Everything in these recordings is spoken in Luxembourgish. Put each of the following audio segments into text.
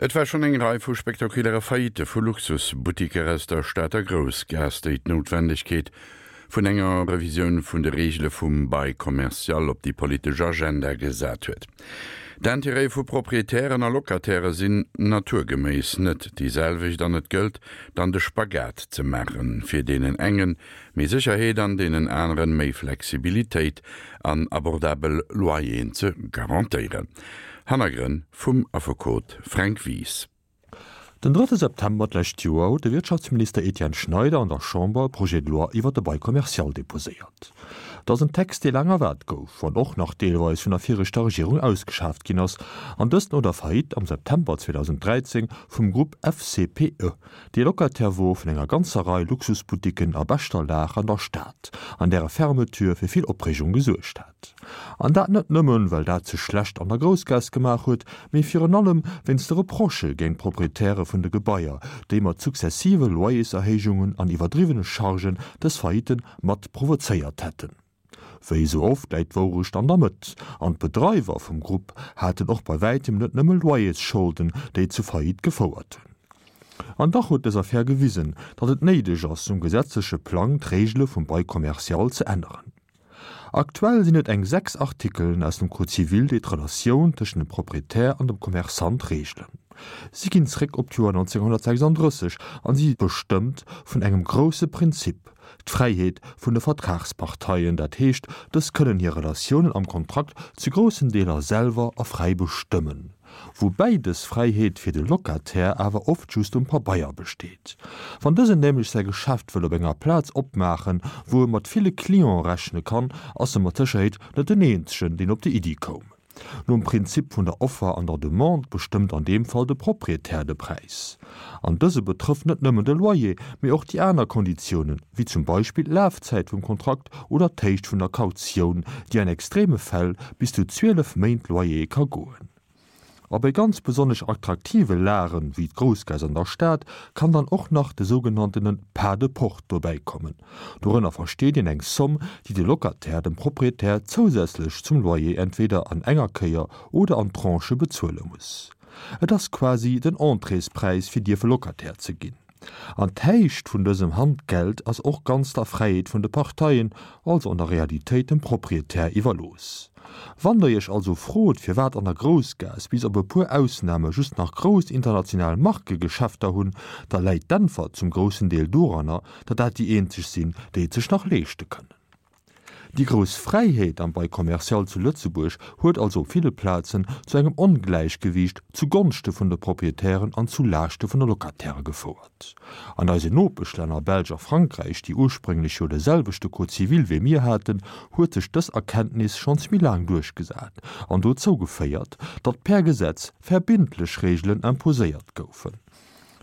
Et war schonn eng Rei vu spektakuläre Faillitte vu Luxusbuttiker aus der Stater Groussgaass, déi d'Noutwendegkeet vun enger Revisioun vun de Reegele vum Bail commercial op déi politesch Agenda gesat huet. D'Intérêtë vu Proprietären a Locatairë sinn naturgeméiss net déi selwecht an et gëllt dann de Spagat ze maachen, fir deenen engen méi Sécherheet an deenen aneren méi Flexibilitéit an abordabel Loyeren ze garantéieren. Hannergrënn vum Affekot Fränk Wies. Den drëtte September d'lescht Joer huet de Wirtschaftsminister Etienne Schneider an der Chamber e Projet de loi iwwer de Bail commercial deposéiert. Et ass en Text, dee laang erwaart gouf, wann och nach deelweis vun der viregter Regierung ausgeschaaft ginn ass, an dëst no der Faillite am September 2013 vum Grupp FCPE, dee Locataire wor vun enger ganzer Rei Luxusboutiquen a beschter Lag an der Stad, an däre Fermeture fir vill Opreegung gesuergt hat. An dat net nëmmen, well dat sech schlecht an der Groussgaass gemaach huet, mee virun allem wéinst de Reprochë géint d'Proprietäre vun de Gebaier, déi mat successive Loyerserhéijungen an iwwerdriwwene Chargen dës Faillite mat provozéiert hätten. Wéi esou oft läit d'Wourecht an der Mëtt, an d'Bedreiwer vum Grupp haten och bei wäitem net nëmme Loyersscholden, déi zu Faillite gefouert hunn. An dach huet dës Affär gewisen, datt et néideg ass, um gesetzleche Plang d'Reegele vum Bail commercial ze änneren. Aktuell sinn et eng 6 Artikelen aus dem Code civil, déi d'Relatioun tëschent dem Proprietär an dem Commerçant reegelen. Si ginn zréck op d'Joer 1936 an si bestëmmt vun engem grousse Prinzip, d'Fräiheet vun de Vertragsparteien, dat heescht, dës kënnen hir Relatiounen am Kontrakt zu groussen Deeler selwer a fräi bestëmmen. Woubäi dës Fräiheet fir de Locataire awer oft just um Pabeier besteet. Wann dësen nämlech säi Geschäft wëll op enger Plaz opmaachen, wou e mat ville Cliente rechne kann, ass e mat Sécherheet net den eenzegen, deen op déi Iddi koum. Nom Prinzip vun der Offer an der Demande bestëmmt an deem Fall de Proprietär de Präis. An dëse betrëfft net nëmmen de Loyer, mee och déi aner Konditiounen, wéi zum Beispill d'Lafzäit vum Kontrakt oder d'Héicht vun der Kautioun, déi an extreme Fäll bis zu 12 Méint Loyer ka goen. A bei ganz besonnesch attraktive Lagen, wéi d'Groussgaass an der Stad, kann dann och nach de sougenanntene Pas de porte dobäi kommen. Dorënner versteet een eng Somm, déi de Locataire dem Proprietär zousätzlech zum Loyer entweder an enger Kéier oder an Tranchë bezuele muss. Et ass quasi den Entréespräis fir dierfe Locataire ze ginn. An d'Héicht vun dësem Handgeld ass och ganz der Fräiheet vun de Parteien, also an der Realitéit dem Proprietär iwwerlooss. Wann der iech also frot firwat an der Groussgaass bis op e puer Ausname just nach grouss international Markegeschäfter hunn, da läit d'Äntwert zum groussen Deel doranner, datt dat déi eenzeg sinn, déi et sech nach leeschte kënnen. Déi grouss Fräiheet am Bail commercial zu Lëtzebuerg huet also op ville Plazen zu engem Ongläichgewiicht zu Gonschte vun de Proprietären an zu Laaschte vun de Locatairë gefouert. An eisen Nopeschlänner Belsch a Frankräich, déi ursprénglech jo de selwechte Code civil wéi mir haten, huet sech dës Erkenntnis schonns méi laang duerchgesat an dozou geféiert, datt per Gesetz verbindlech Reegelen imposéiert goufen.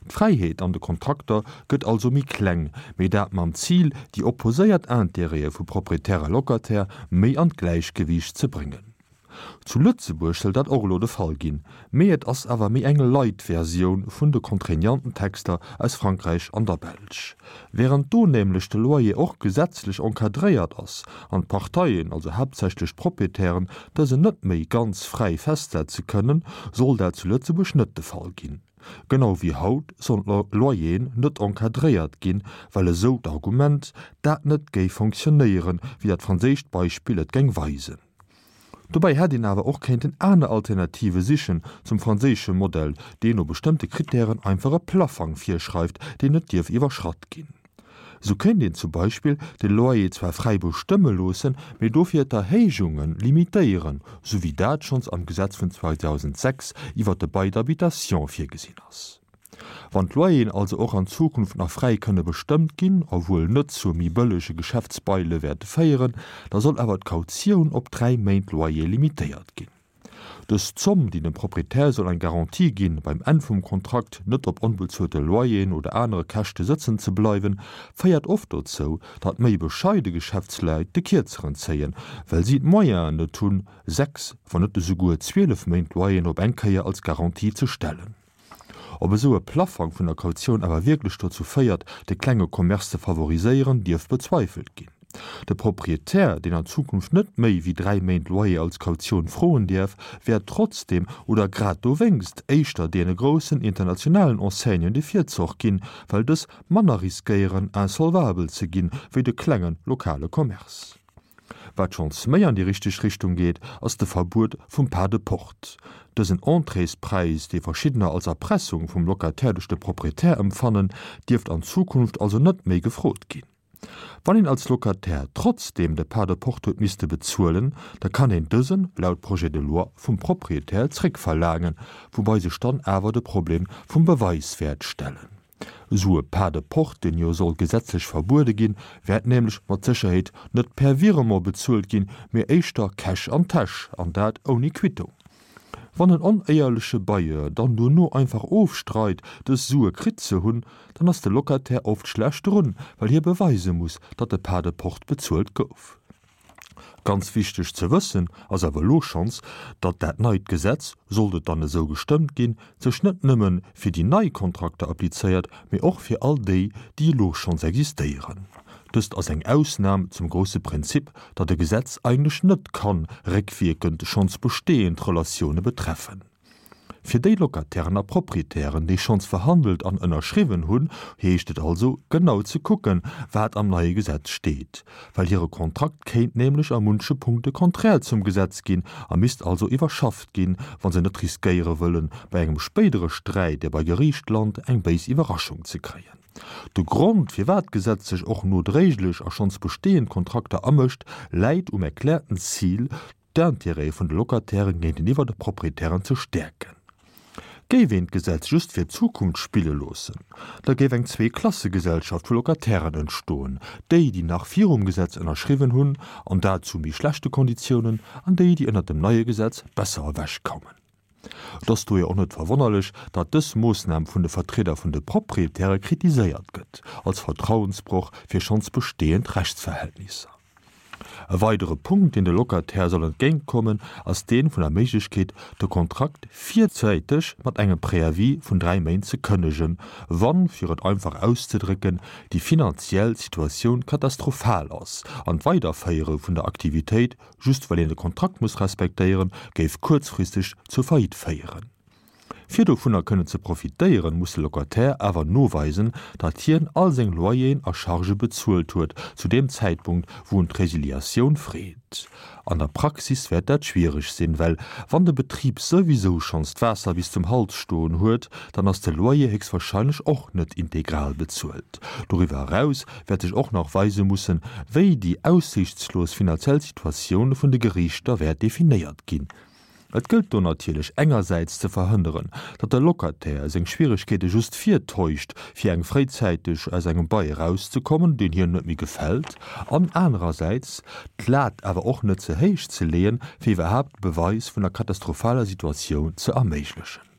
D'Fräiheet an de Kontrakter gëtt also méi kleng, mee dat mam Zil, déi opposéiert Intérêtë vu Proprietär a Locataire méi an d'Gläichgewiicht ze bréngen. Zu Lëtzebuerg soll dat och elo de Fall ginn, mee et ass awer méi eng light Versioun vun de contraignanten Texter aus Frankräich an der Belsch. Wärend do nämlech de Loyer och gesetzlech encadréiert ass an d'Parteien, also haaptsächlech d'Proprietären, dësen net méi ganz fräi festsetze kënnen, soll dat zu Lëtzebuerg net de Fall ginn. Genau wéi haut sollen d'Loyeren net encadréiert ginn, well, esou d'Argument, dat net géif fonctionnéieren, wéi dat franséischt Beispill et geng weisen. Dobäi hätt een awer och kéinten aner Alternative sichen zum franséische Modell, deen no bestëmmte Krittären einfach e Plaffang virschreift, deen net dierf iwwerschratt ginn. Sou kéint een zum Beispill de Loyer zwar fräi bestëmme loossen, mee dofir d'Erhéijunge limitéieren, sou wéi dat schonns am Gesetz vun 2006 iwwer de Bail d'habitation virgesinn ass. Wann d'Loyeren also och an Zukunft nach fräi kënne bestëmmt ginn, a wuel net zu méi bëllege Geschäftsbaile wäerte féieren, da soll awer d'Kautioun op 3 Méint Loyer limitéiert ginn. Dës Zomm, déi dem Proprietär soll eng Garantie ginn, beim Enn vum Kontrakt net op onbezuelte Loyeren oder anere Käschte sëtzen ze bleiwen, féiert oft dozou, datt méi bescheide Geschäftsleit de Kierzeren zéien, well si d'Moyenen net hunn, 6, wann net esouguer 12 Méint Loyeren op eng Kéier als Garantie ze stellen. Ob esou e Plaffang vun der Kautioun awer wierklech dozou féiert, de klenge Commerce ze favoriséieren, dierf bezweifelt ginn. De Proprietär, deen an Zukunft net méi wéi 3 Méint Loyer als Kautioun froen däerf, wäert trotzdeem oder grad dowéngst éischter deene groussen internationalen Enseignen de Virzoch ginn, well dës manner riskéieren insolvabel ze ginn, wéi de klenge lokale Commerce. Wat schonns méi an déi richteg Richtung geet, ass de Verbuet vum Pas de porte. Dësen Entréespräis, dee verschiddener als Erpressung vum Locataire duerch de Proprietär empfannen, dierft an Zukunft also net méi gefrot ginn. Wann een als Locataire trotzdeem de Pas de porte huet misste bezuelen, da kann een dësen, laut Projet de loi, vum Proprietär zréckverlaangen, woubai sech dann awer de Problem vum Beweis wäert stellen. Esou e Pas de porte, deen jo soll gesetzlech verbuede ginn, wäert nämlech mat Sécherheet net per Virement bezuelt ginn, mee éischter Cash an d'Täsch, an dat ouni Quittung. Wann en onéierleche Bailleur dann dono einfach ofstreit, dës Sue kritt ze hunn, dann ass de Locataire oft schlecht drun, well hie beweise muss, datt de Pas de porte bezuelt gouf. Ganz wichteg ze wëssen ass awer elo schonns, datt dat neit Gesetz, sollt et dann esou gestëmmt ginn, sech net nëmme fir déi nei Kontrakter applizéiert, mee och fir all déi, déi elo schonns existéieren. Dëst ass eng Ausnam zum grousse Prinzip, datt e Gesetz eigentlech net kann réckwierkend schonns bestehend Relatioune betreffen. Fir déi Locatairen a Proprietären, déi schonns verhandelt an ënnerschriwwen hunn, heescht et also, genau ze kucken, wat am neie Gesetz steet, well hire Kontrakt kéint nämlech a munche Punkte konträr zum Gesetz ginn a misst also iwwerschafft ginn, wa se net riskéiere wëllen, bei engem spéidere Sträit, dee bei Geriicht lant, eng béis Iwwerraschung ze kréien. De Grond, firwat d'Gesetz sech och nodréiglech a schonns bestehend Kontrakter amëscht, läit um erkläerten Zil, d'Intérêtë vun de Locatairen géinteniwwer de Proprietären ze stäerken. Géif een d'Gesetz just fir d'Zukunft spille loossen, da géif eng Zweeklassegesellschaft vu Locatairen entstoen, déi, déi nach virum Gesetz ënnerschriwwen hunn, an dat zu méi schlechte Konditiounen, an déi, déi ënnert dem neie Gesetz besser ewechkoumen. Et ass dohier och net verwonnerlech, datt dës Moossnam vun de Vertrieder vun de Proprietäre kritiséiert gëtt, als Vertrauensbroch fir schonns bestehend Rechtsverhältnisser. E weidere Punkt, deen de Locataire soll entgéintkommen, ass dee vun der Méiglechkeet, de Kontrakt virzäiteg mat engem Préavis vun 3 Méint ze kënnegen, wann, fir et einfach auszedrécken, déi finanziell Situatioun katastrophal ass an d'Weiderféiere vun der Aktivitéit just well een de Kontrakt muss respektéieren, géif kuerzfristeg zur Faillite féieren. Fir dovunner kënnen ze profitéieren, muss de Locataire awer noweisen, datt hien all seng Loyeren a Chargë bezuelt huet zu deem Zäitpunkt, wou en d'Resiliatioun freet. An der Praxis wäert dat schwiereg sinn, well wann de Betrib souwisou schonns d'Waasser bis zum Hals stoen huet, dann ass de Loyer héchstwahrscheinlech och net integral bezuelt. Doriwwer eraus wäert sech och nach weise mussen, wéi déi aussiichtslos finanziell Situatioun vun de Geriichter wäert definéiert ginn. Et gëllt do natierlech engersäits ze verhënneren, datt de Locataire seng Schwieregkeete just virtäuscht, fir eng fréizäiteg aus engem Bail erauszekommen, deen hien net méi gefält, an anerersäits d'Lat awer och net ze héich ze leeën, fir iwwerhaapt de Beweis vun der katastrophaler Situatioun ze erméiglechen.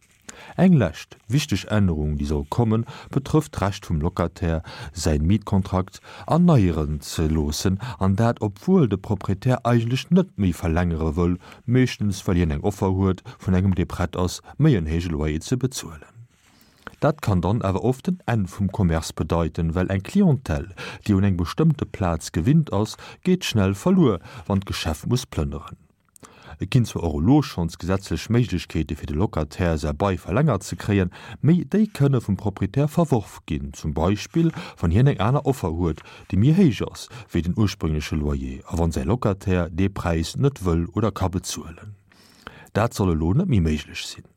Eng lescht wichteg Ännerung, déi soll kommen, betrëfft d'Recht vum Locataire, säin Mietkontrakt erneieren ze loossen, an dat obwuel de Proprietär eigentlech net méi verlängere wëll, meeschtens well hien eng Offer huet vun engem, dee prett ass, méi en héije Loyer ze bezuelen. Dat kann dann awer oft den Enn vum Commerce bedeiten, well eng Clientèle, déi un eng bestëmmte Plaz gewinnt ass, geet schnell verluer, wann d'Geschäft muss plënneren. Et ginn zwar och elo schonns gesetzlech Méiglechkeete fir de Locataire säi Bail verlängert ze kréien, méi déi kënne vum Proprietär verworf ginn, zum Beispill wann hien eng aner Offer huet, déi méi héich ass wéi den ursprüngleche Loyer a wann säi Locataire dee Präis net wëll oder ka bezuelen. Dat soll elo net méi méiglech sinn.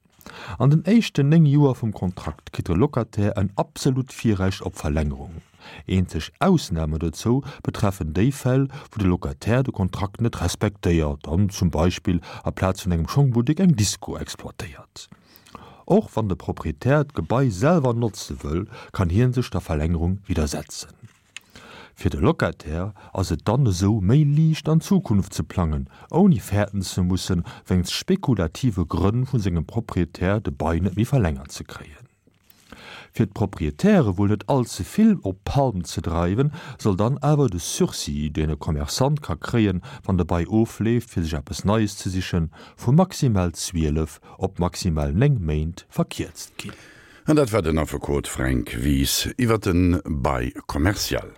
An den éischten 9 Joer vum Kontrakt kritt de Locataire en absolut Virrecht op Verlängerung. Eenzeg Ausname dozou betreffen déi Fäll, wou de Locataire de Kontrakt net respektéiert an zum Beispill aplaz vun engem Schongbuttek eng Disco exploitéiert. Och wann de Proprietär d'Gebai selwer notze wëll, kann hie sech der Verlängerung widdersetzen. Fir de Locataire ass et dann esou méi liicht an d'Zukunft ze plangen, ouni fäerten ze mussen, wéinst spekulative Grënn vu sengem Proprietär de Bail net méi verlängert ze kréien. Fir d'Proprietäre wuel net all ze vill op d'Palm ze dreiwen, soll dann awer de Sursis, deen e Commerçant ka kréien, wann de Bail ofleeft, fir sech eppes Neies ze sichen, vu maximal 12 op maximal 9 Méint verkierzt ginn. An dat war den Affekot Fränk Wies iwwer de Bail commercial.